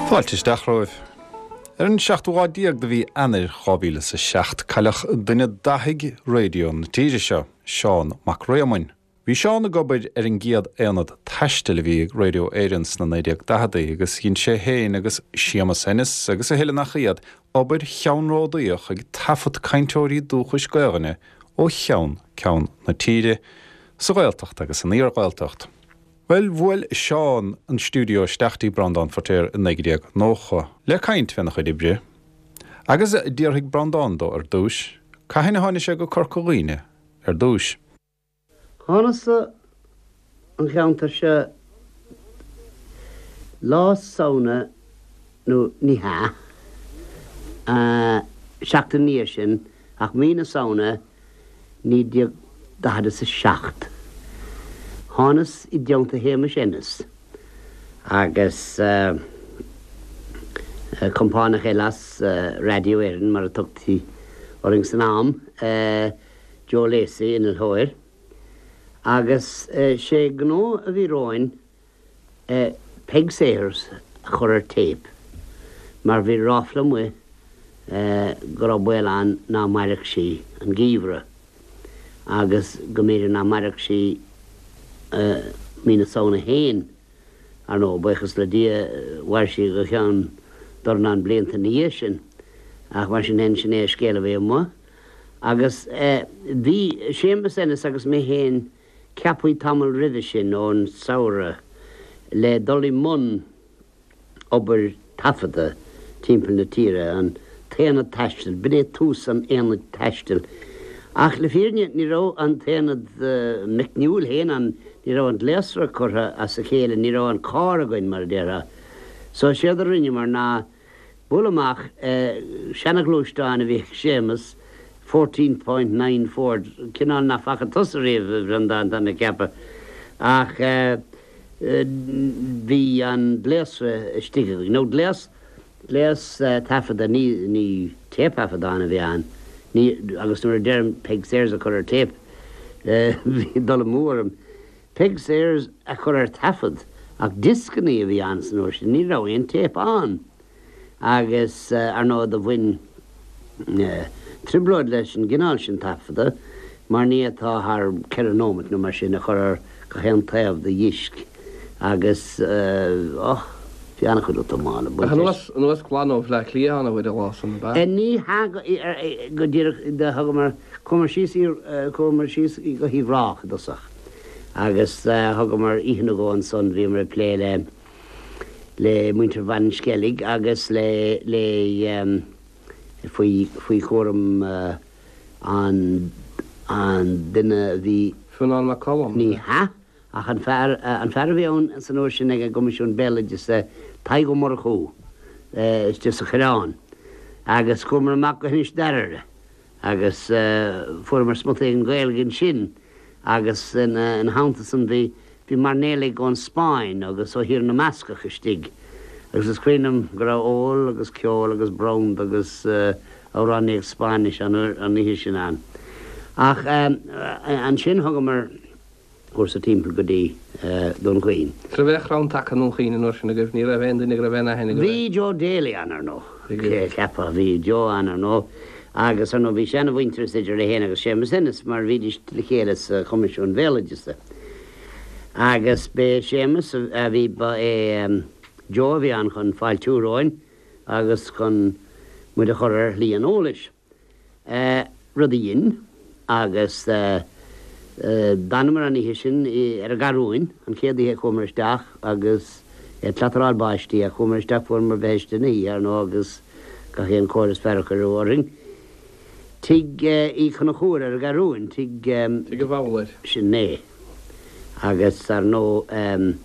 Fáilte isteach romhaibh. Ar an seachtú lá déag de mhí Eanáir 2007 cailleadh duine d'fhathaigh raidió na tíre seo, Seán Mac Réamoinn. Bhí Seán ag obair ar an gcéad aonad taistil a bhí ag Radio Éireann sna 1940idí agus dhein sé féin agus Séamus Ennis agus a thuilleadh nach iad obair cheannródaíoch ag taifead cainteoirí dúchais Gaelainne ó cheann ceann na tíre, sa Ghaeltacht agus san iar-Ghaeltacht. Bhuel, bhuail Seán an stiúideo isteach dtí Breandán Feiritéar i 1990 le caint féna chuid oibre agus d'fhiafraigh Breandán dó ar dtúis cathain a tháinig sé go Corca Dhuibhne ar dtúis. Thánas-sa an cheantar seo Lá Samhna nó ní hea, seachtain ina dhiaidh sin ach mí na Samhna 1947. Thánas i dteannta Shéamais Ennis agus compánach eile as Radio Éireann mar a tugtaí orainn san am, Joe Lacey, innealtóir, agus sé gnó a bhí romhainn Peig Sayers a chur ar téip mar bhí ráfla amuigh go raibh baol ann ná mairfeadh sí an geimhreadh agus go mb'fhéidir ná mairfeadh sí mí na Samhna féin. Ar ndóigh, buíochas le Dia, mhair sí go ceann dornán blianta ina dhiaidh sin ach mar sin féin, sin é an scéal a bhí amuigh. Agus bhí Séamus Ennis agus mé féin ceaptha tamall roimhe sin, ón samhradh, le dul i mbun obair taifeadta timpeall na tíre, an t-aonad taistil, b'in é tús an aonaid taistil. Ach le fírinne, ní raibh an t-aonad meicniúil féin ann, ní raibh an gléasra curtha as a chéile, ní raibh an carr againn, mar a déarfá. So séard a rinneamar ná, Bualadh amach seana-ghluaisteán a bhí ag Séamus, 14.9 Ford, cineál nach bhfaca tusa riamh, a Bhreandáin, tá mé ag ceapadh, ach bhí an gléasra istigh againn, nó gléas, gléas taifeadta, ní, ní téipthaifeadán a bhí ann, ní, agus nuair a deirim Peig Sayers a chur ar téip, bhí dul amú orm. Peig Sayers a chur ar taifead, ach dioscannaí a bhí ann san uair sin, ní raibh aon téip ann. Agus, ar ndóigh, do bhain trioblóid leis an gcineál sin taifeadta, mar ní fhéadfá thar cheithre nóimeat nó mar sin a chur ar gach aon taobh de dhisc agus, och, bhí an-chuid útamála ag baint leis. Ach anuas glan ó Bhleá Cliath ann a bhfuil an lá san, ab ea? Ní hea go díreach, do thugamar. Chuamar síos, chuamar síos go hUíbh Ráthach i dtosach agus thugamar oíche nó dhó ansan, bhíomar ag plé le, le muintir Mhainsceilg agus le, le, faoi, faoi chúram an, an duine a bhí. Fionnán Mac Coluim? Ní hea, ach an fear, an fear a bhí ann san uair sin ag an gCoimisiún Béaloideasa, Tadhg Ó Murchú, istigh sa Choireán agus chuamar amach go hInis Daraire. Agus fuaireamar smut éigin Gaeilge ansin agus ina theannta san bhí bhí mairnéalaigh ón Spáinn agus ó Thír na mBascach istigh agus is cuimhin liom go raibh ól agus ceol agus branda agus amhránaíocht Spáinnis an oíche sin ann. Ach ansin thugamar. cúrsa timpeall go dtí Dún Chaoin. Ní raibh aon chrann taca i nDún Chaoin an uair sin agaibh, ní raibh aon duine go raibh aon aithne agaibh air. Bhí Joe Daly ann, ar ndóigh. Bhí. Cheapfá, bhí Joe ann, ar ndóigh, agus ar ndóigh bhí seana-mhuintearas idir é féin agus Séamus Ennis mar bhídís le chéile sa Choimisiún Bhéaloideasa. Agus b'é Séamus a bhí, ba é Joe a bhí ann chun fáiltiú romhainn agus chun muid a chur ar shlí an eolais. Rud a dhein, agus d'fhanamar an oíche sin ar an gCarúin, an chéad oíche a chuamar isteach agus ag clataráil báistí ach chuamar isteach, fuaireamar bitheiste na hoíche, ar ndóigh, agus gach aon chóir is fearr a cuireadh orainn. Tigh Uí Chonchúir ar an gCarúin, tigh. Tigh an Bhabhlaeir. Sin é. Agus, ar ndóigh,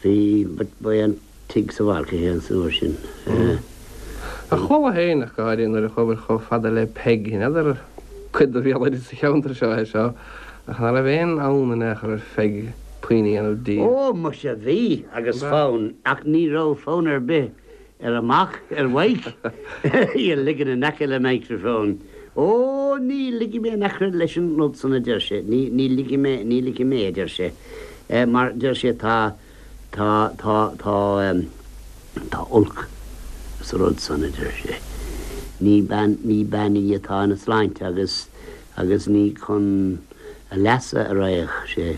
bhí, ba é an. tigh sa bhaile féin san uair sin. Ach chuala féin ach go háirithe nuair a chuabhair chomh fada le Peig, n'fheadar cuid de bhéaloideas an cheantair seo é seo, ach ná raibh aon fhonn in aon chor ar Pheig puinn a dhéanamh di. Ó, muise, bhí, agus fonn, ach ní raibh fonn ar bith ar a mac, ar Mhaidhc, í a ligean in aice le microphone. Ó, ní ligfidh mé in aice leis an rud san, a deir sé, ní, ní ligfidh mé, ní ligfidh mé, a deir sé, mar, deir sé, tá, tá, tá, tá, tá olc sa rud san, a deir sé. Ní bean, ní bean í atá ina sláinte agus, agus ní chun a leasa a raghadh sé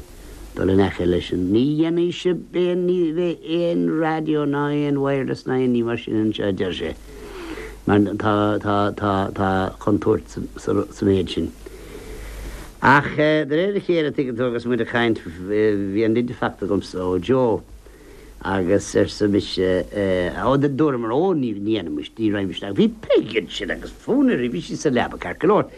dul in aice leis an. Ní dhéanfaidh sibh aon, ní bheidh aon raidió ná aon wireless ná aon ní mar sin anseo, a deir sé, mar tá, tá, tá, tá contúirt sa, sa, sa méid sin. Ach de réir a chéile, tuigeann tú, agus muid ag caint, bhí an leid faighte agamsa ó Joe agus arsa mise, ó, dúramar, ó, ní, ní dhéanfaimis, ní raghaimis isteach. Bhí Peig ansin agus fonn uirthi, bhí sí sa leaba ceart go leor.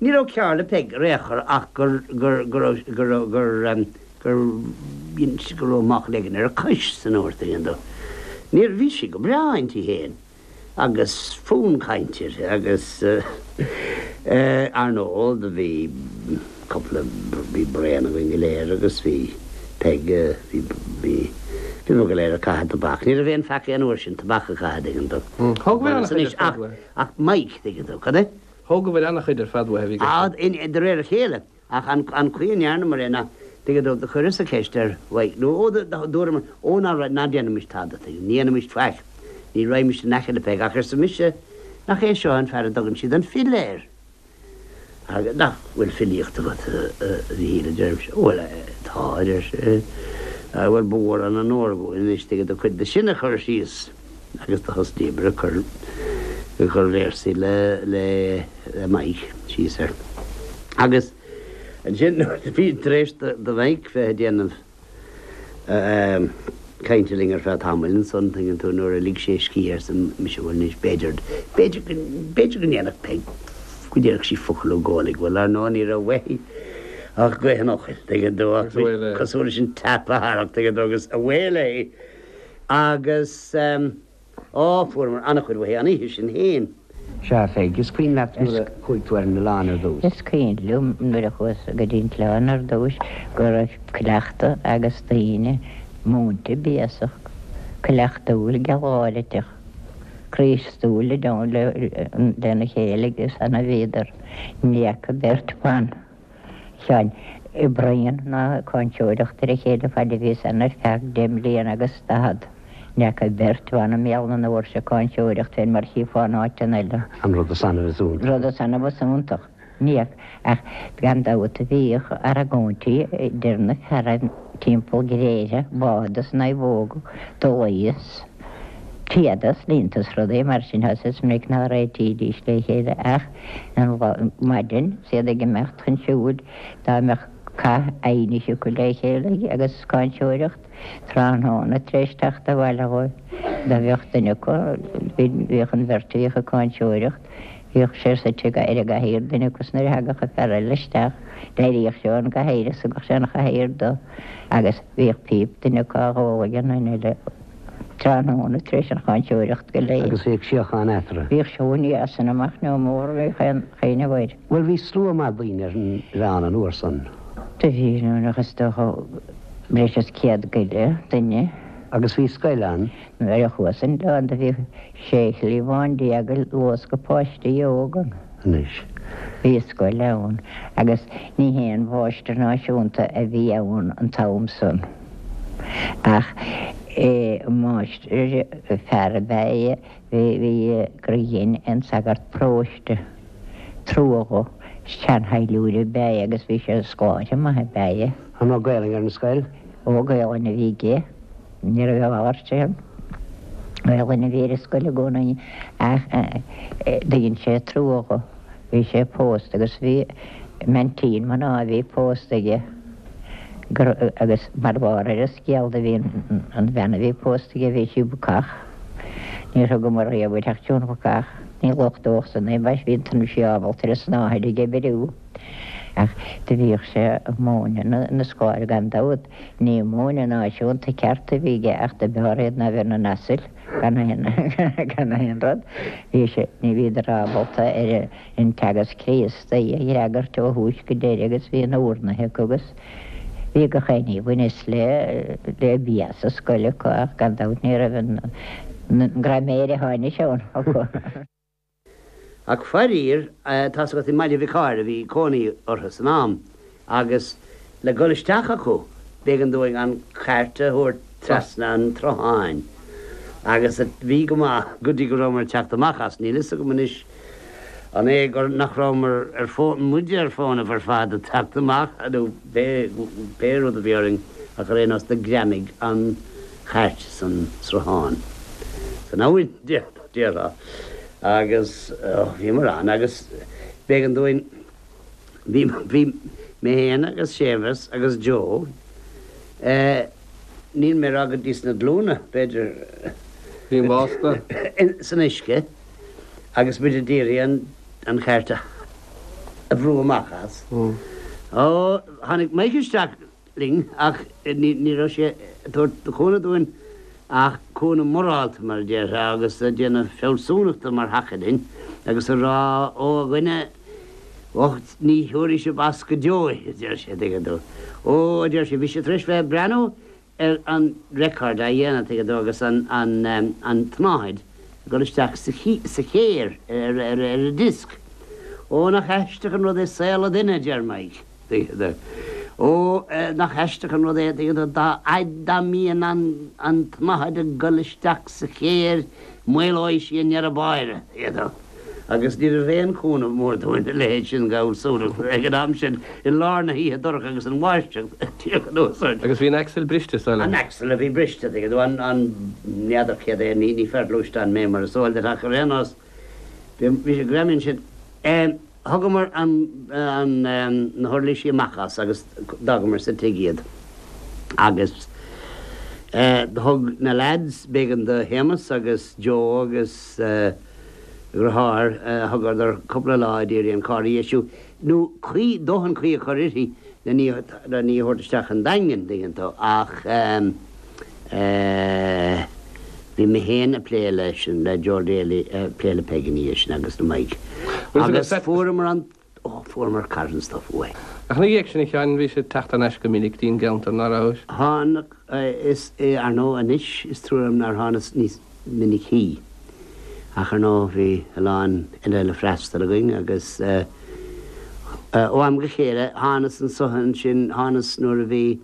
Ní raibh cearr le Peig ar aon chor ach gur, gur, go raibh, go raibh, gur, gur, go raibh máchail éigin ar a cois san uair, tuigeann tú. Níor, bhí sí go breá inti féin agus fonn cainte uirthi agus eh, ar ndóigh do bhí cúpla, bhí braon againn go léir agus bhí Peig, bhí, bhí, bhí muid go léir ag caitheamh tobac. Ní raibh aon pheaca an uair sin tobac a chaitheamh, tuigeann tú. Thógabhair an-chuid ar fad uaithe. Ach Mike, tuigeann tú, cad é? Thógabhair an-chuid ar fad uaithe, bhí gach. De réir a chéile, ach an chaoi a ndearnamar é ná, tuigeann tú, do chuireas-sa ceist ar Mhaidhc, nó ó, dúramar, ó ná, ná déanaimis tada, tuigeann, ní dhéanaimis faic, ní raghaimis in aice le Peig, ach arsa mise, nach é seo an fear a dtugann siad an file air? Agus nach bhfuil filíocht agat, a Mhichíl, a deirimse. Bhuel, tá, a deir sé. Bhuel, ba mhór an onóir dhúinn anois, tuigeann tú, cuid de sin a chur síos. Agus do thosnaíomar ag cur ag cur véarsaí le le Mike síos air. Agus ansin nuair a bhí tar éis do do Mhike bheith ag déanamh cainte linn ar feadh tamaill ansan, tuigeann tú, nuair a lig sé a scíth arsa mise bhuel anois b'fhéidir b'fhéidir go b'fhéidir go ndéanfadh Peig go ndéarfadh sí focal nó dhó uilig. Bhuel ar ndóigh ní raibh uaithi ach gaoth an fhocail, tuigeann tú, ach cosúil leis an tap a tharrac, tuigeann tú, agus away léi. Agus, á, fuaireamar an-chuid uaithi an oíche sin fhéin. Sea, a Pheig, is cuimhin leat nuair a chuaigh tú ar an oileán ar dtús? Is cuimhin liom nuair a chuas go dtí an t-oileán ar dtús go raibh cleachtadh ages daoine múinte béasach, cleachtúil, gealgháiriteach, Críostúil lena chéile agus ann a bhíodar. Ní fhaca beirt bhan. Sheáin ag bruíon ná ag cáinteoireacht ar a chéile faid a bhíos ann ar feadh deich mbliana agus daichead. Ní fhaca beirt bhan i mbéal na ndoirse ag cáinteoireacht fén mar chífeá in áiteanna eile. An rud is annamh is iontach. Rud is annamh is iontach. Ní fhaca, ach gan dabht bhíodh argóintí idir na fearaibh timpeall gréithe, bád is naomhóga, dulaí is téada is líonta is rudaí mar sin is minic ná réitídís le chéile ach an lá maidin is iad ag imeacht chun siúil dá mbeadh cath aighnis acu le chéile agus cáinteoireacht tráthnóna tar éis teacht abhaile dhóibh dá bheadh duine acu bhíodh an bheirt a bhíodh ag cáinteoireacht bhíodh sé suite ar an gcathaoir duine acu is nuair a thagadh an fear eile isteach d'éiríodh sé ón gcathaoir is thugadh sé an chathaoir dó agus bhíodh píp duine acu á dh'ól ag an duine eile tráthnóna tar éis an cháinteoireacht go léir. Agus bhíodh síocháin eatarthu. Bhíodh seoin as san amach nó mór a bhíodh aon chaoineadh air. Bhuel bhí slua maith daoine ar an oileán an uair san. Do bhí, nach is dócha breis is 100 go leith duine. Agus bhí scoil ann. Nuair a chuas an oileán do bhí sé chliabhán ag luascadh páistí óga ann. Anois. Bhí scoil ann agus ní haon mháistir náisiúnta a bhí ann an t-am san. Ach máistir fear ab ea é bhí gur dhein an sagart paróiste trua dho. Seanshaidhliúir ab ea é agus bhí sé scoláire maith ab ea é. An raibh Gaelainn ar an scoil? Ó, Gaelainn a bhí aige. Ní raibh a mhalairt ann. Gaelainn a bhí ar an scoil i gcónaí ach dhein sé trua dho. Bhí sé pósta agus bhí m'aintín mná a bhí pósta aige agus mar bharr ar an scéal do bhí an bhean a bhí pósta aige bhí sí bacach. Níor thugamar riamh uirthi ach Joan Bhacach. Ní lochtódh san é mar bhí an sí ábalta ar an snáthaid ag oibriú. Ach do bhíodh sé ag múineadh na scoláirí gan dabht. Ní múineadh náisiúnta ceart a bhí aige ach do b'fhearr iad ná bheith ina n-asail. Gan aon, gan aon rud. Bhí sé, ní bhíodar ábalta ar an Teagasc Críostaí a fhreagairt ó thús go deireadh agus bhí na urnaithe acu agus bhí gach aon ní a bhaineas le, le bia sa scoil acu ach gan dabht ní raibh an, an graiméir atá anois ann acu. Ach faraor, tá's agat i mBaile Mhic Ádhaimh a bhí cónaí orthu san am agus le dhul isteach acu b'éigean dúinn an chairt a thabhairt trasna an tsrutháin agus bhí go maith go dtí go rabhamar ag teacht amach as. Níl fhios agam anois an é gur nach rabhamar ar fónamh, muide ar fónamh ar fad ag teacht amach nó pé rud a bhí orainn ach ar aon nós do ghreamaigh an chairt san sruthán, san abhainn, déarfá. Agus bhíomar ann agus b'éigean dúinn, bhí, bhí mé féin agus Séamus agus Joe, eh, níl mé ag rá go dtí sna glúine, b'fhéidir, Bhí an básta. san uisce agus muid a d'iarraidh an, an chairt a, a bhrú amach as. Ó, tháinig Mike isteach linn ach ní raibh sé ag tabhairt cúnamh dúinn ach cúnamh morálta, mar a déarfá, agus ag déanamh fealsúnachta mar thaca linn agus ag rá, Ó, a dhuine bhoicht, ní thiúrfaidh sibh as go deo é, a deir sé, tuigeann tú. Ó, a deir sé, bhí sé tar éis bheith ag breathnú ar an record á dhéanamh, tuigeann tú, agus an tsnáthaid ag dul isteach sa chéir ar an disc. Ó, nach aisteach an rud é saol an duine, a deir Mike. Ó, nach aisteach an rud é, tuigeann tú, dá fhaid dá mbíonn an tsnáthaid ag dul isteach sa chéir, maolóidh sí i ndeireadh báire, tuigeann tú. Agus ní raibh aon chúnamh mór dúinn a leithéid sin d'fhealsúnacht ag an am sin, i lár na hoíche dorcha agus an bháisteach ag tíocht anuas orainn. Agus bhí an axle briste, is dóigh liom. An axle a bhí briste, tuigeann tú, an, an, n'fheadar céard é, ní, ní fear gluaisteán mé mar is eol duit ach ar aon nós, bhí, bhí sé greamaithe ansin. Thugamar na huirlisí amach as agus d'fhágamar sa tigh iad. Agus do thug na leaids, b'éigean do Shéamus agus Joe agus a dhriotháir, thugadar cúpla lá a d'iarraidh an carr a dheisiú, nó caoi, dóthain caoi a chur uirthi len í, len í a thabhairt isteach an Daingean, dtuigeann tú. Ach bhí mé féin ag plé leis, le Joe Daly, ag plé le Peig ina dhiaidh sin agus le Mike. Agus fuaireamar an, ó, fuaireamar carn stuif uaidh. Ach ina dhiaidh sin, a Sheáin, bhís ag teacht thar n-ais go minic dtí'n gceantar, ná rabhais? Tháinig, is, ar ndóigh anois is trua liom nár thánas níos minicí. Ach ar ndóigh bhí a lán eile le freastal againn agus ó am go chéile thánas anso ansin, thánas nuair a bhí,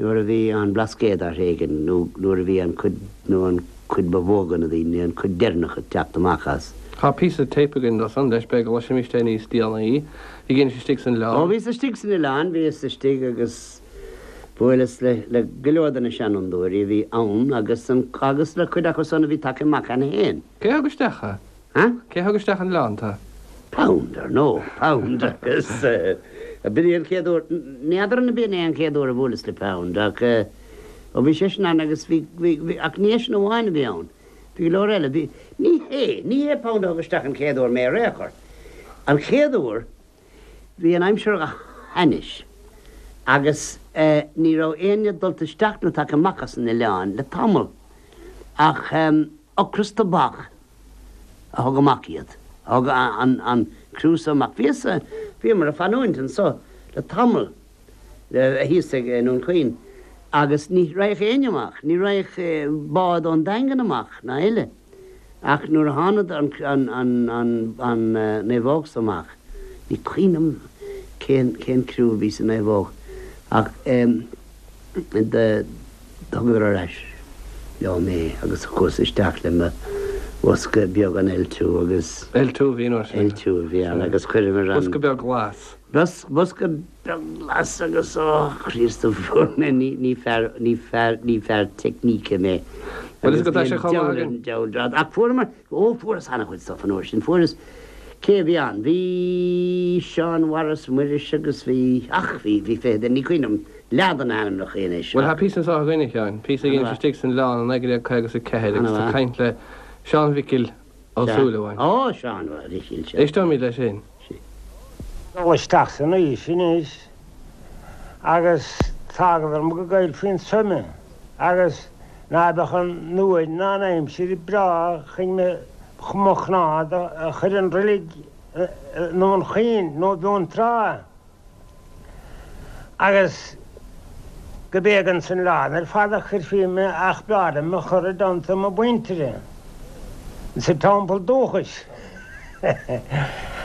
nuair a bhí an Blascaod á thréigean nó nuair a bhí an cuid, nó an cuid ba mhó de na daoine, an cuid deireanach ag teacht amach as. Tá píosa téip againn dó san leis, b'fhéidir go gcloisfimíst é níos déanaí. Bhí gin istigh san oileán. Ó bhíos istigh san oileán, bhíos istigh agus bhuaileas le, le go leor de na seanfhondúirí a bhí ann agus an, agus le cuid acu san a bhí tagtha amach cheana féin. Cé thug isteach thú? Ha? Cé thug isteach an oileán tú? Pound, ar ndóigh, Pound agus b'in é an chéad uair, n'fheadar an b'in é an chéad uair a bhuaileas le Pound ach ó bhí seisean ann agus bhí, bhí, bhí, ach ní eisean amháin a bhí ann, bhí go leor eile, bhí, ní hé, ní hé Pound a thug isteach an chéad uair mé ar aon chor. An chéad uair, bhí an aimsir go hainnis agus ní raibh éinne dulta isteach nó tagtha amach as an oileán le tamall ach ocras tobac a thug amach iad, a thug an criú so amach. Bhíos, bhíomar ag fanúint anso le tamall thíos ag i nDún Chaoin agus ní raghadh éinne amach, ní raghadh bád ón Daingean amach ná eile. Ach nuair a thánad an naomhóg so amach, ní cuimhin liom cén cén criú a bhí sa naomhóg ach do thugadar ar ais leo mé agus chuas isteach le mo bhosca beag an L2 agus. L2 a bhí an uair sin. L2 a bhí ann agus chuireamar an. Bosca beag glas. Bosca beag glas agus ó Chríost a fuair mé ní fear ní fear ní fear teicníce mé. Bhuel is go tá sé chomh maith againn. Diabhal drad. Ach fuaireamar, ó fuaireas an-chuid stuff an uair sin. Fuaireas, cé a bhí ann? Bhí Seán Mhaurice Muiris agus bhí, ach bhí, bhí fiche duine, ní cuimhin liom leath de na hainmneacha anois. Bhuel tá píosa anseo againn a Sheáin, píosa a dheinis istigh san oileán i 1954 agus tú ag caint le Seán Mhicil Ó Súilleabháin. Ó, Seán Mhicil, sea. Éisteoimid leis sin. Dul isteach san aois anois agus d'fhágadar mo go gcaillfí an suim agus. Ná beadh an uair ná an aimsir breá chun mo chnámh a chur i ndroilig i nDún Chaoin nó i bhFionntrá. Agus go b'éigean san oileán ar fad a chuirfí mé ach b'fhearr liom a chur i dteannta mo mhuintire sa teampall dúchais.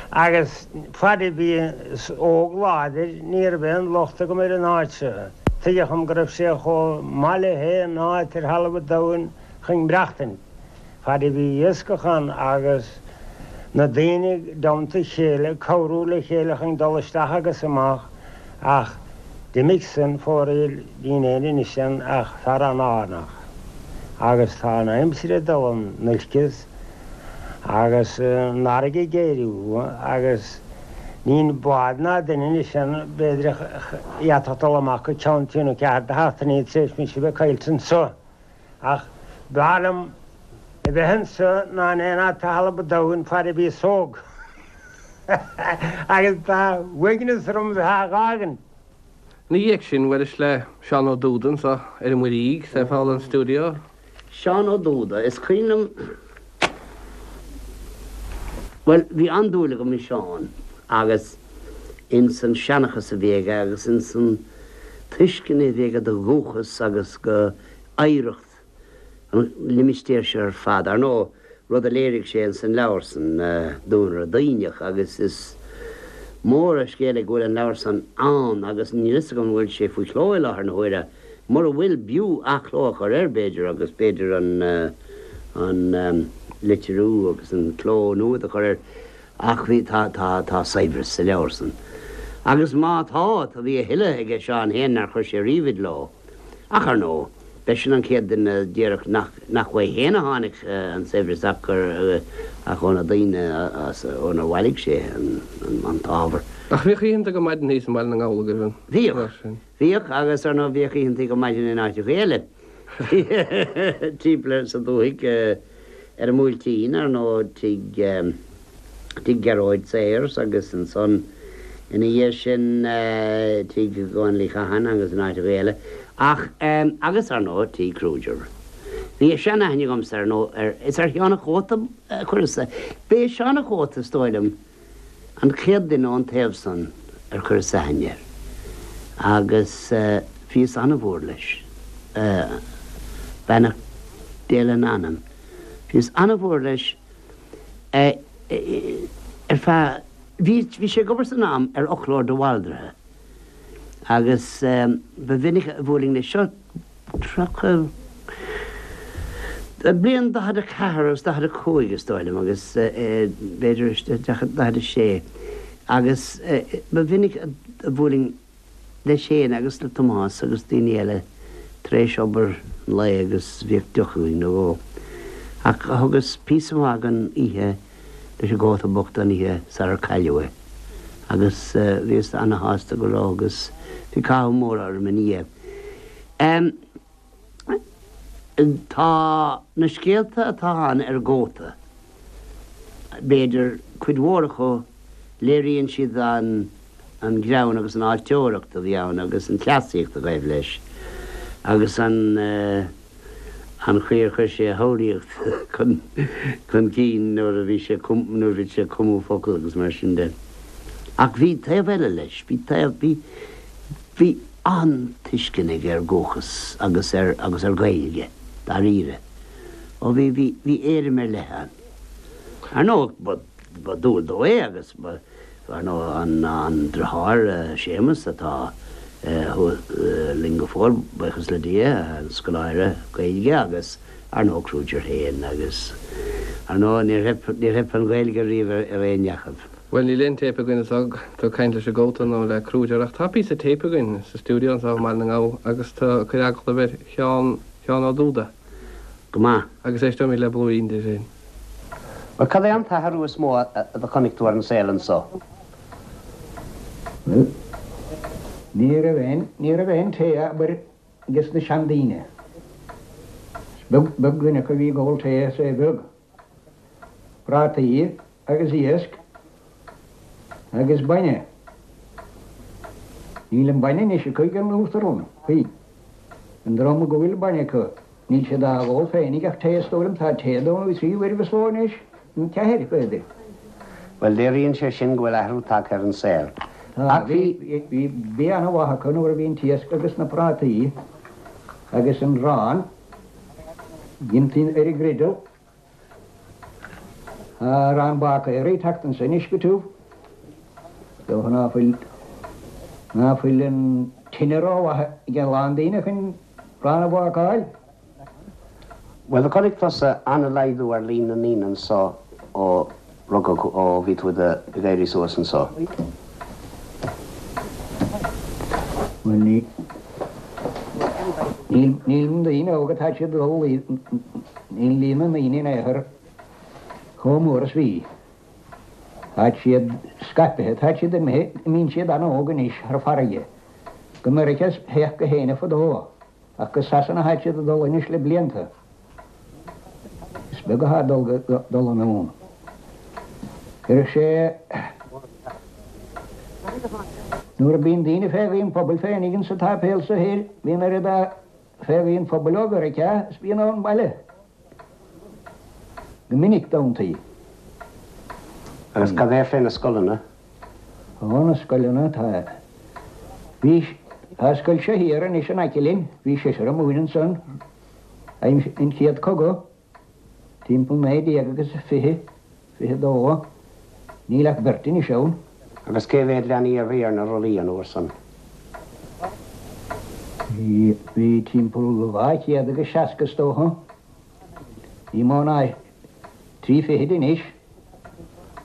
Agus fad a bhíos óg láidir ní raibh aon locht agam ar an áit seo. Tuigeadh dhom go raibh sé chomh maith le haon áit ar thalamh an domhain chun maireachtaint. Fad a bhí iascach ann agus na daoine i dteannta a chéile ag cabhrú le chéile chun dul isteach agus amach ach d'imigh san fóraoil níl aon anois ann ach fear an-fhánach agus tá an aimsir ag dul in olcas agus an fharraige ag géarú agus níl bád ná duine anois ann b'fhéidir a d'fhéadfadh dul amach go ceann trí nó ceathair de sheachtainí tar éis mise a bheith caillte anso. Ach b'fhearr liom a bheith anso ná in aon áit ar thalamh an domhain fad a bhíos óg. Agus tá uaigneas orm a bheith á dh'fhágaint. Ina dhiaidh sin, bhuailis le Seán Ó Dúda anso ar an Muirígh, sa Foghlaim Studio. Seán Ó Dúda, is cuimhin liom, bhuel, bhí an-dúil agam i Seán agus ins an seanchas a bhí aige agus ins an tuiscint a bhí aige do dhúchas agus go oidhreacht an limistéir seo ar fad. Ar ndóigh, rud a léirigh sé ins an leabhar san, Duanaire Duibhneach, agus is mór an scéal é go bhfuil an leabhar san ann agus níl fhios agam an bhfuil sé faoi chló i láthair na huaire. Mura bhfuil, b'fhiú athchló a chur air, b'fhéidir, agus b'fhéidir an an litriú agus an cló nua do chur air. Ach bhí, tá, tá, tá saibhreas sa leabhar san. Agus má tá, tá, bhí a thuilleadh aige Seán féin nár chuir sé riamh i gcló. Ach ar ndóigh, b'eisean an chéad duine a déarfadh nach, nach uaidh féin a tháinig an saibhreas ach gur, ach ó na daoine as, ónar bhailigh sé an, an, an t-ábhar. Ach bhíodh oícheanta go maidin thíos i mBaile na nGall agaibh an Bhíodh. tráth sin. Bhíodh, agus ar ndóigh bhíodh oícheanta go maidin in áiteacha eile. Timpeall sa dúthaigh ar an mBuailtín, ar ndóigh, tigh, tigh Ghearóid Sayers agus ansan ina dhiaidh sin tigh Dhónaill Uí Chatháin agus in áiteacha eile. Ach, agus ar ndóigh tigh Kruger. Bhí seanaithne agamsa ar ndóigh ar, is ar Sheán a' Chóta a chuireas, b'é Seán a' Chóta is dóigh liom, an chéad duine ón taobh san ar chuireas aithne air agus bhíos an-mhór leis, beannacht Dé lena anam, bhíos an-mhór leis ar feadh, bhí, bhí sé ag obair san am ar fhoclóir de Bhaldraithe agus ba mhinic a bhuailinn leis seo, 30, bliain 44 agus 45 is dóigh liom agus b'fhéidir 46 agus ba mhinic a bhuailinn leis féin agus le Tomás agus daoine eile tar éis obair an lae agus bhíodh deoch againn nó dhó. Ach thugas píosa maith den oíche leis an gcóta bocht an oíche sarar cailleadh é agus bhíos ana-shásta go raibh agus bhí cathú mór orm ina dhiaidh. Tá na scéalta atá ann ar an gcóta, b'fhéidir, cuid mhór acu, léiríonn siad an an greann agus an fháilteoireacht a bhí ann agus an chleasaíocht a ghaibh leis agus an an chaoi ar chuir sé a shamhlaíocht chun chun cinn nuair a bhí sé nuair a bhí sé ag cumadh focal agus mar sin de. Ach bhí taobh eile leis, bhí taobh, bhí, bhí. an-tuiscint aige ar dhúchas agus ar agus ar Ghaeilge, dáiríre. Ó bhí, bhí, bhí éirim ar leith ann. Ar ndóigh, ba, ba dual dó é agus ba, ar ndóigh, an, an deartháir, Séamus, atá thuas linn go fóill, buíochas le Dia, an scoláire Gaeilge agus, ar ndóigh, Kruger féin agus, ar ndóigh, níor theip, níor theip an Ghaeilge riamh ar aon ní acu. Bhuel, níl aon téip againn anseo, tú ag caint leis an gcóta nó le Kruger, ach tá píosa téip againn sa stiúideo anseo i mBaile na nGall agus tú ag cur agallamh ar Sheán, Sheán Ó Dúda. Go maith. Agus éisteoimid le blúirín de sin. Bhuel, cad é an t-athrú is mó a do chonaic tú ar an saol anso? Bhuel, ní raibh aon, ní raibh aon tae abair ages na seandaoine. Is beag, beag duine acu a bhí ag ól tae is é beag. Prátaí agus iasc agus bainne. Níl an bainne anois acu ag an Uachtarán, faoi. An dream go bhfuil bainne acu. Níl siad á ól féinig ach tae is dóigh liom. Tá tae dó nó 3 uairibh sa ló anois, nó ceathair, b'fhéidir. Bhuel, léiríonn sé sin go bhfuil athrú tagtha ar an saol. Tá, Ach bhí. Bhí bia ana-mhaith acu nuair a bhí an t-iasc agus na prátaí agus an arán déanta ar an ngriddle. Tá arán bácaera ag teacht anso anois go tiubh. Is dócha ná fuil, ná fuil an tine rómhaith ag a lán daoine chun arán a bhácáil. Bhuel, do chonaic tusa an-laghdú ar líon na ndaoine anso ó rugadh, ó bhí tú ag éirí suas anso. Bhuel, ní, níl, níl na daoine óga, tá siad ag dul, níl líon na ndaoine in aon chor chomh mór is bhí. Tá siad scaipthe, tá siad imithe, imíonn siad an-óg anois thar farraige. Go Meiriceá a théadh gach éinne fadó. Ach go Sasana atá siad ag dul anois le blianta. Is beag atá ag dul anonn. Cuirfidh sé Nuair a bíonn daoine fé ghaoth an phobail féinig insa tsáipéal so thoir, bíonn oiread fé ghaoth an phobail ó Mheiriceá is bíonn ón mbaile. Go minic d'amanntaí. Agus cad é fé na scoileanna? Ó, na scoileanna, tá, bhí, tá scoil seo thiar anois in aice linn, bhí seisear ag múineadh ansan aimsir an chéad cogadh, timpeall 19 agus 20, 22, níl ach beirt anois ann. Agus cé mhéad leanaí a bhí ar na rollaí an uair san? Bhí, bhí timpeall 200 agus 60 is dócha, ní mó ná Trí fichid anois.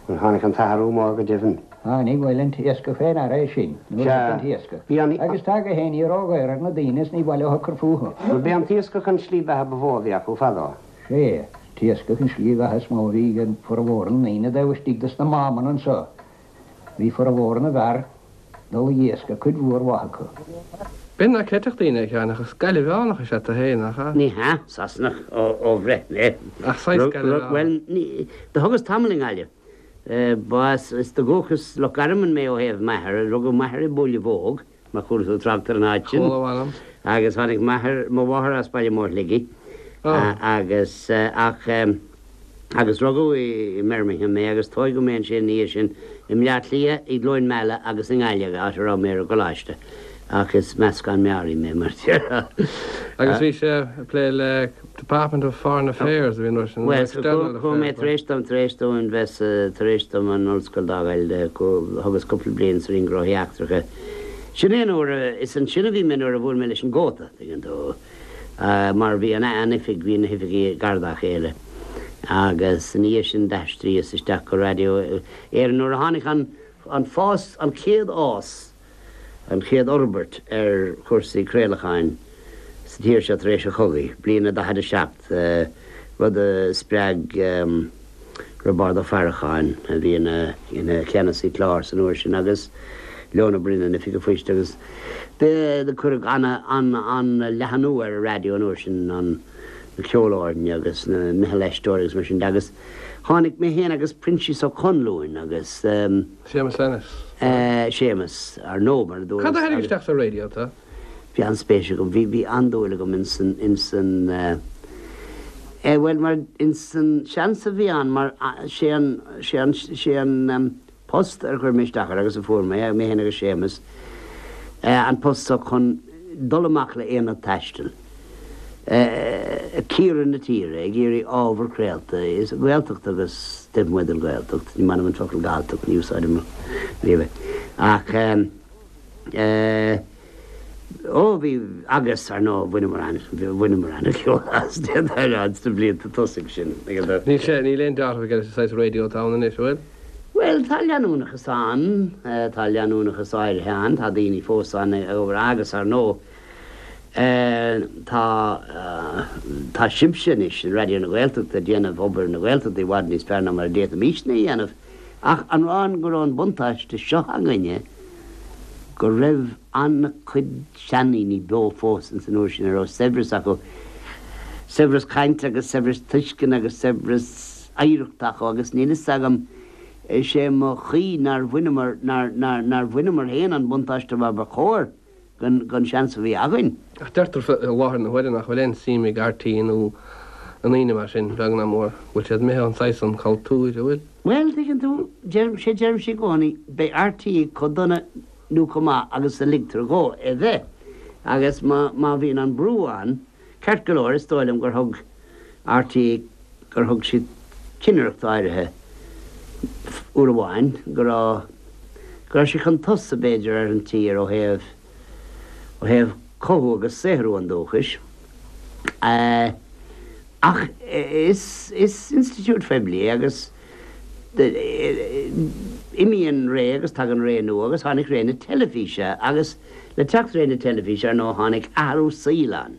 Bhuel, tháinig an t-athrú mór go deimhin. Tháinig, bhuel, an t-iascach fé ndeara é sin, nuair a Sea, thit an t-iascach. bhí an. Agus tá gach éinní ródhaor ar na daoine is ní mhaith leo cur fúthu. Bhuel, b'é an t-iascach an tslí beatha ba mhó a bhí acu fadó. Sea, t-iascach an slí bheatha is mó a bhí ag formhór na ndaoine taobh istigh dos na mámanna anso. Bhí formhór na bhfear dul ag iascach, cuid mhór mhaith acu. B'in nach gcreidfeadh daoine, a Sheáin, ach as Gaillimheánach is ea tu féin, nach ea? Ní hea, Sasanach ó bhreith mé. Ach saghas Gaillimheánach. Bhuel, ní, do thugas tamall i nGaillimh. Ba as, is de dhúchas Loch Garman mé ó thaobh m'athar. Rugadh m'athair i mBuaile Bhóg, má chuala tú trácht ar an áit sin. Chuala, mh'anam. Agus tháinig m'athair, mo mháthair as Baile Móir Shligigh. Agus, ach. Agus rugadh i mBirmingham mé agus tóigeadh mé ansin ina dhiaidh sin i mBleá Cliath, i gCluain Meala agus i nGaillimh, áit a raibh mé ar an gcoláiste. Ach is meascán meáraí mé, mar a déarfá. Agus bhí sé ag plé le Department of Foreign Affairs a bhí an uair sin, nó Bhuel, External chuaigh mé Affairs. tar éis dom, tar éis dom bheith sa, tar éis dom an ollscoil d'fhágáil, thugas cúpla bliain sa Roinn Gnóthaí Eachtracha. Sin é an uair a, is ansin a bhí mé nuair a bhuail mé leis an gcóta, tuigeann tú. mar bhí an an oifig, bhí na hoifigí gar dá chéile agus ina dhiaidh sin d'aistríos isteach go Raidió Éireann nuair a tháinig an an fás, an chéad fhás, an chéad fhorbairt ar chúrsaí craolacháin sa tír seo tar éis an chogaidh, bliain a 47, rud a spreag Roibeárd Ó Faracháin, a bhí ina ina cheannasaí clár san uair sin, agus Leon Ó Broin, an Oifig an Phoist, agus do cuireadh ana ana leathanú ar an raidió an uair sin, an na ceolfhoirne agus na meitheal aisteoirí agus mar sin de, agus tháinig mé féin agus Proinsias Ó Conluain agus. Séamus Ennis. Séamus, ar ndóigh, mar a dúras. Cad a tharraing isteach sa raidió tú? Bhí an-spéis agam, bhí, bhí an-dúil agam ins an, ins an eh, bhuel, mar, ins an seans a bhí ann, mar sé an, sé an, sé an post ar chuir mé isteach air agus a fuair mé, mé féin agus Séamus, eh, an post so chun dul amach le aonad taistil, eh, ag cíoradh na tíre, ag iarraidh ábhar craolta, is Gaeltacht agus taobh amuigh den Ghaeltacht, ní maith liom an focal Galltacht, ní úsáidim riamh é, ach eh, Eh, ó bhí, agus, ar ndóigh, bhaineamar an, bhaineamar an-cheol as, d'fhéadfá a rá, sna blianta tosaigh sin. Níl sé, níl aon dealramh aige leis an saghas raidió atá ann anois, an bhfuil? Bhuel, tá leanúnachas ann, tá leanúnachas áirithe ann, tá daoine fós ann ag obair agus, ar ndóigh, eh, tá, tá sibhse anois in Raidió na Gaeltachta ag déanamh obair na Gaeltachta i bhfad níos fearr ná mar a d'fhéadfaimisne a dhéanamh. Ach an rá go raibh an buntáiste seo againne go raibh an-chuid seandaoine beo fós ins an uair sin a raibh saibhreas acu, saibhreas cainte agus saibhreas tuisceana agus saibhreas oidhreachta acu agus níl fhios agam, is é mo chaoi nár bhaineamar, nár, nár, nár bhaineamar féin an buntáiste mar ba chóir. gon seans a bhí againn. Ach deirtear i láthair na huaire nach bhfuil aon suim ag RTÉ nó i ndaoine mar sin, beag ná mór, go bhfuil siad imithe ón saghas san cultúir, an bhfuil? Bhuel, tuigeann tú, deirim, sé deirimse i gcónaí, beidh RTÉ chomh dona nó chomh maith agus a ligtear dhó é bheith. Agus má, má bhíonn an brú ann, ceart go leor, is dóigh liom gur thug RTÉ, gur thug siad cinnireacht áirithe uair amháin, go raibh, go raibh sé chun tosaigh, b'fhéidir, ar an tír ó thaobh, ó thaobh cothú agus saothrú an dúchais. Ach is, is institiúid phoiblí é agus imíonn ré agus tagann ré nua agus tháinig ré na teilifíse agus le teacht ré na teilifíse, ar ndóigh, tháinig athrú saoil ann.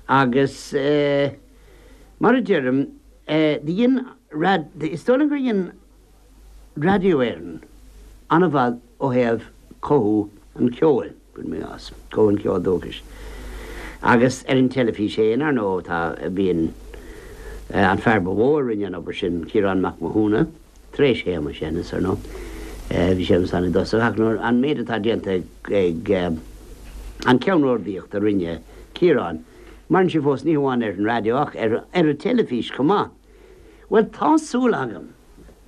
Agus mar a deirim, dhein, is dóigh liom gur dhein Raidió Éireann an-mhaith ó thaobh cothú an cheoil, cuirim i gcás, cothú an cheoil dúchais. Agus ar an teilifís féin, ar ndóigh, tá, bíonn an fear ba mhó a rinne an obair sin, Ciarán Mac Mathúna, tar éis Shéamais Ennis, ar ndóigh. Bhí Séamus ann i dtosach, ach nuair, an méid atá déanta ag an ceannródaíocht a rinne Ciarán, maireann sé fós, ní hamháin ar an raidió ach ar an teilifís chomh maith. Bhuel, tá súil agam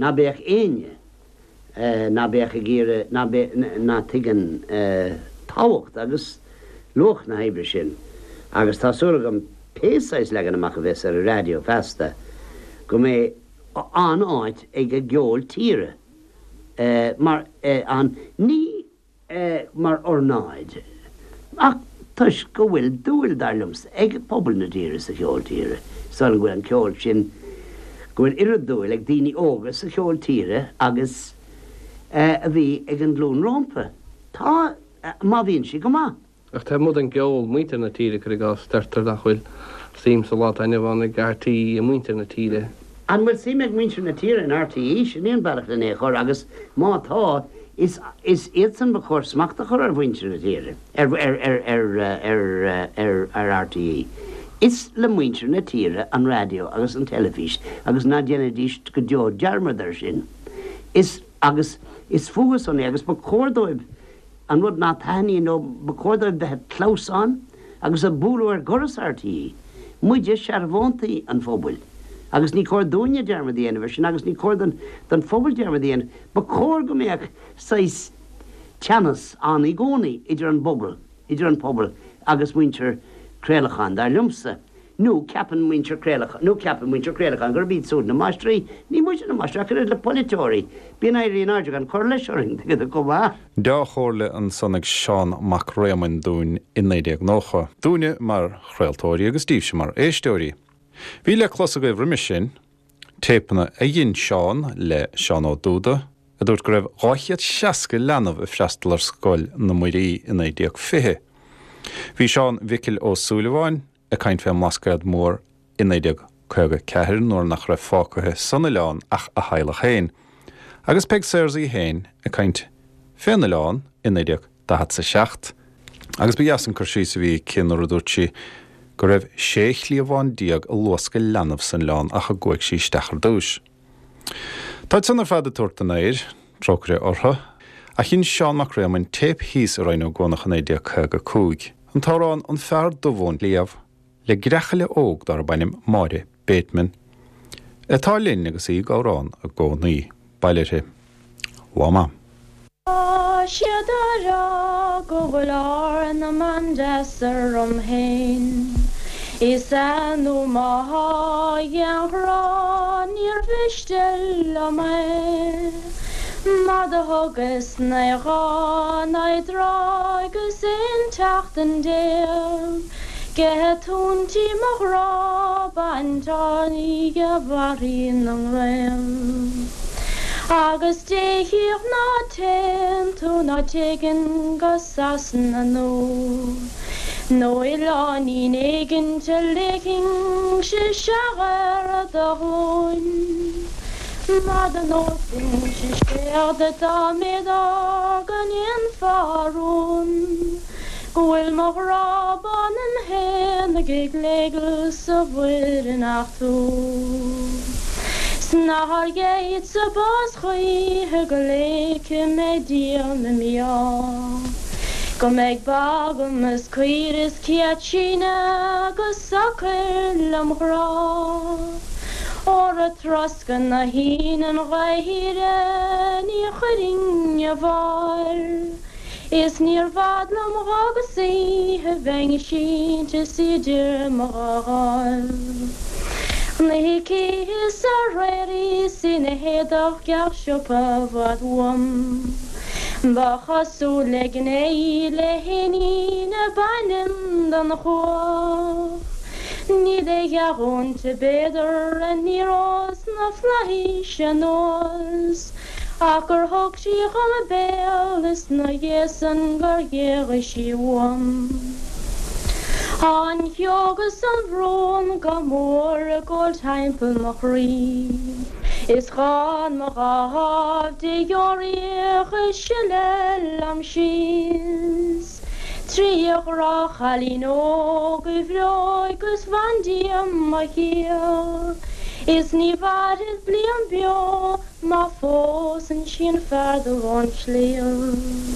ná beadh éinne ná beadh ag iarraidh, ná beadh, ná tuigeann tábhacht agus luach na hoibre sin agus tá súil agam pé saghas leagan amach a bheas ar an raidió feasta go mbeidh an-áit ag an gceol tíre mar an ní mar ornáid, ach toisc go bhfuil dúil, dar liomsa, ag pobal na tíre sa cheol tíre. Is dóigh liom go bhfuil an ceol sin, go bhfuil oiread dúil ag daoine óga sa cheol tíre agus a bhí ag an nglúin rómpa. Tá, má bhíonn sé go maith. Ach taobh amuigh den gceol, muintir na tíre, cuir i gcás, deirtear nach bhfuil suim sa lá atá inniu ann ag RTÉ i muintir na tíre. An bhfuil suim ag muintir na tíre in RTÉ? Sin é an bealach lena é a chur agus má tá, is is iadsan ba chóir smacht a chur ar mhuintir na tíre, ar ar ar ar ar ar ar RTÉ. Is le muintir na tíre an raidió agus an teilifís agus ná déanaidís go deo dearmad air sin. Is agus is fúthu san é agus ba chóir dóibh An rud ná taitníonn leo, ba chóir dóibh bheith ag clamhsán agus ag bualadh ar dhoras RTÉ. Muide searbhóntaí an phobail agus ní cóir dúinne dearmad a dhéanamh ar sin agus ní cóir don phobal dearmad a dhéanamh. Ba chóir go mbeadh saghas teannas ann i gcónaí idir an bpobal, idir an pobal agus muintir craolacháin, dar liomsa. Nó ceapann muintir craolacháin, nó ceapann muintir craolacháin gurb iad súd na máistrí. Ní muide na máistrí, ach oiread le polaiteoirí. Bíonn éirí in airde gan cur leis orainn, tuigeann tú chomh maith. Dea-chomhairle ansan ag Seán Mac Réamoinn dúinn i 1990. Dúinne mar chraoltóirí agus díbhse mar éisteoirí. Bhí le clos agaibh roimis sin, téipeanna a dhein Seán le Seán Ó Dúda, a dúirt go raibh 260 leanbh ag freastal ar Scoil na Muirí i 1920. Bhí Seán Mhicil Ó Súilleabháin ag caint fén mBlascaod Mór i 1954 nuair nach raibh fágtha san oileán ach a theaghlach féin, agus Peig Sayers í féin ag caint fén oileán i 1947 agus ba dheas an cur síos a bhí aici nuair a dúirt sí go raibh 16 chliabhán ag luascadh leanbh san oileán ach a gcuaigh sí isteach ar dtúis. Táid san ar fad ag tabhairt den aoir, trócaire orthu, ach dhein Seán Mac Réamoinn téip thíos i Rinn Ó gCuanach i 1955, an t-amhrán An Fear Dubh ón Sliabh le greachaile óg darb ainm Máire Bateman, atá linn agus í ag amhrán i gcónaí. Bail uirthi. Lá maith. Tá siad á rá go bhfuil ár na mban deas orm féin. Is ea nó má thá a ghrá níor mhiste liom é. Mar do thugas 9 lá 9 dtráth agus 11 tseachtain. Ge túintí mo ghrá baint oíche barraí na nGael. Agus Dé chíodh ná téann tú ná téiginn go Sasana nó nó oileáinín éigint a ligfinnse isteach ar do ghlúin. Mar do neosfainnse scéal duit dá mb'fhéidir go ndéanfá rún. Go bhfuil mo ghrá baineann fhéin ag gléigeal sa mhuir in ach tú. 'S nár ghéillse bás choíche go léigfidh mé díom i mí-ádh. Go mbeidh ba agam is caoire is céad síneadh go socair lem ghrá. Óra ag troscadh na haoine an ghaoth thíre ní chuirfinn a bharr. Is níor bhfad liom dh'fhágas oíche bheinn sínte is idir mo dhá dháimh. Na hící is aréir is ina héadach geal siopa i bhfad uaim. Ba chosúil le gné í le héinín a b'ainm don chuach. Níl a dhath inti b'fhéidir aniar ós na flaithis anuas. Ach gur thug sí dhom a béal is 'na dhiaidh san gur ghéagaigh sí uaim. Tá an shióg is an bhrón go mór ag gabháil timpeall mo chroí. Is dhán mo dhá dháimh de dheoraíoch ag sileadh liom síos. Trí ghrá chailín óg bhreoigh is bhandia mo shaoil Is ní mhairfead bliain beo má phósann sí an fear dubh ón sliabh.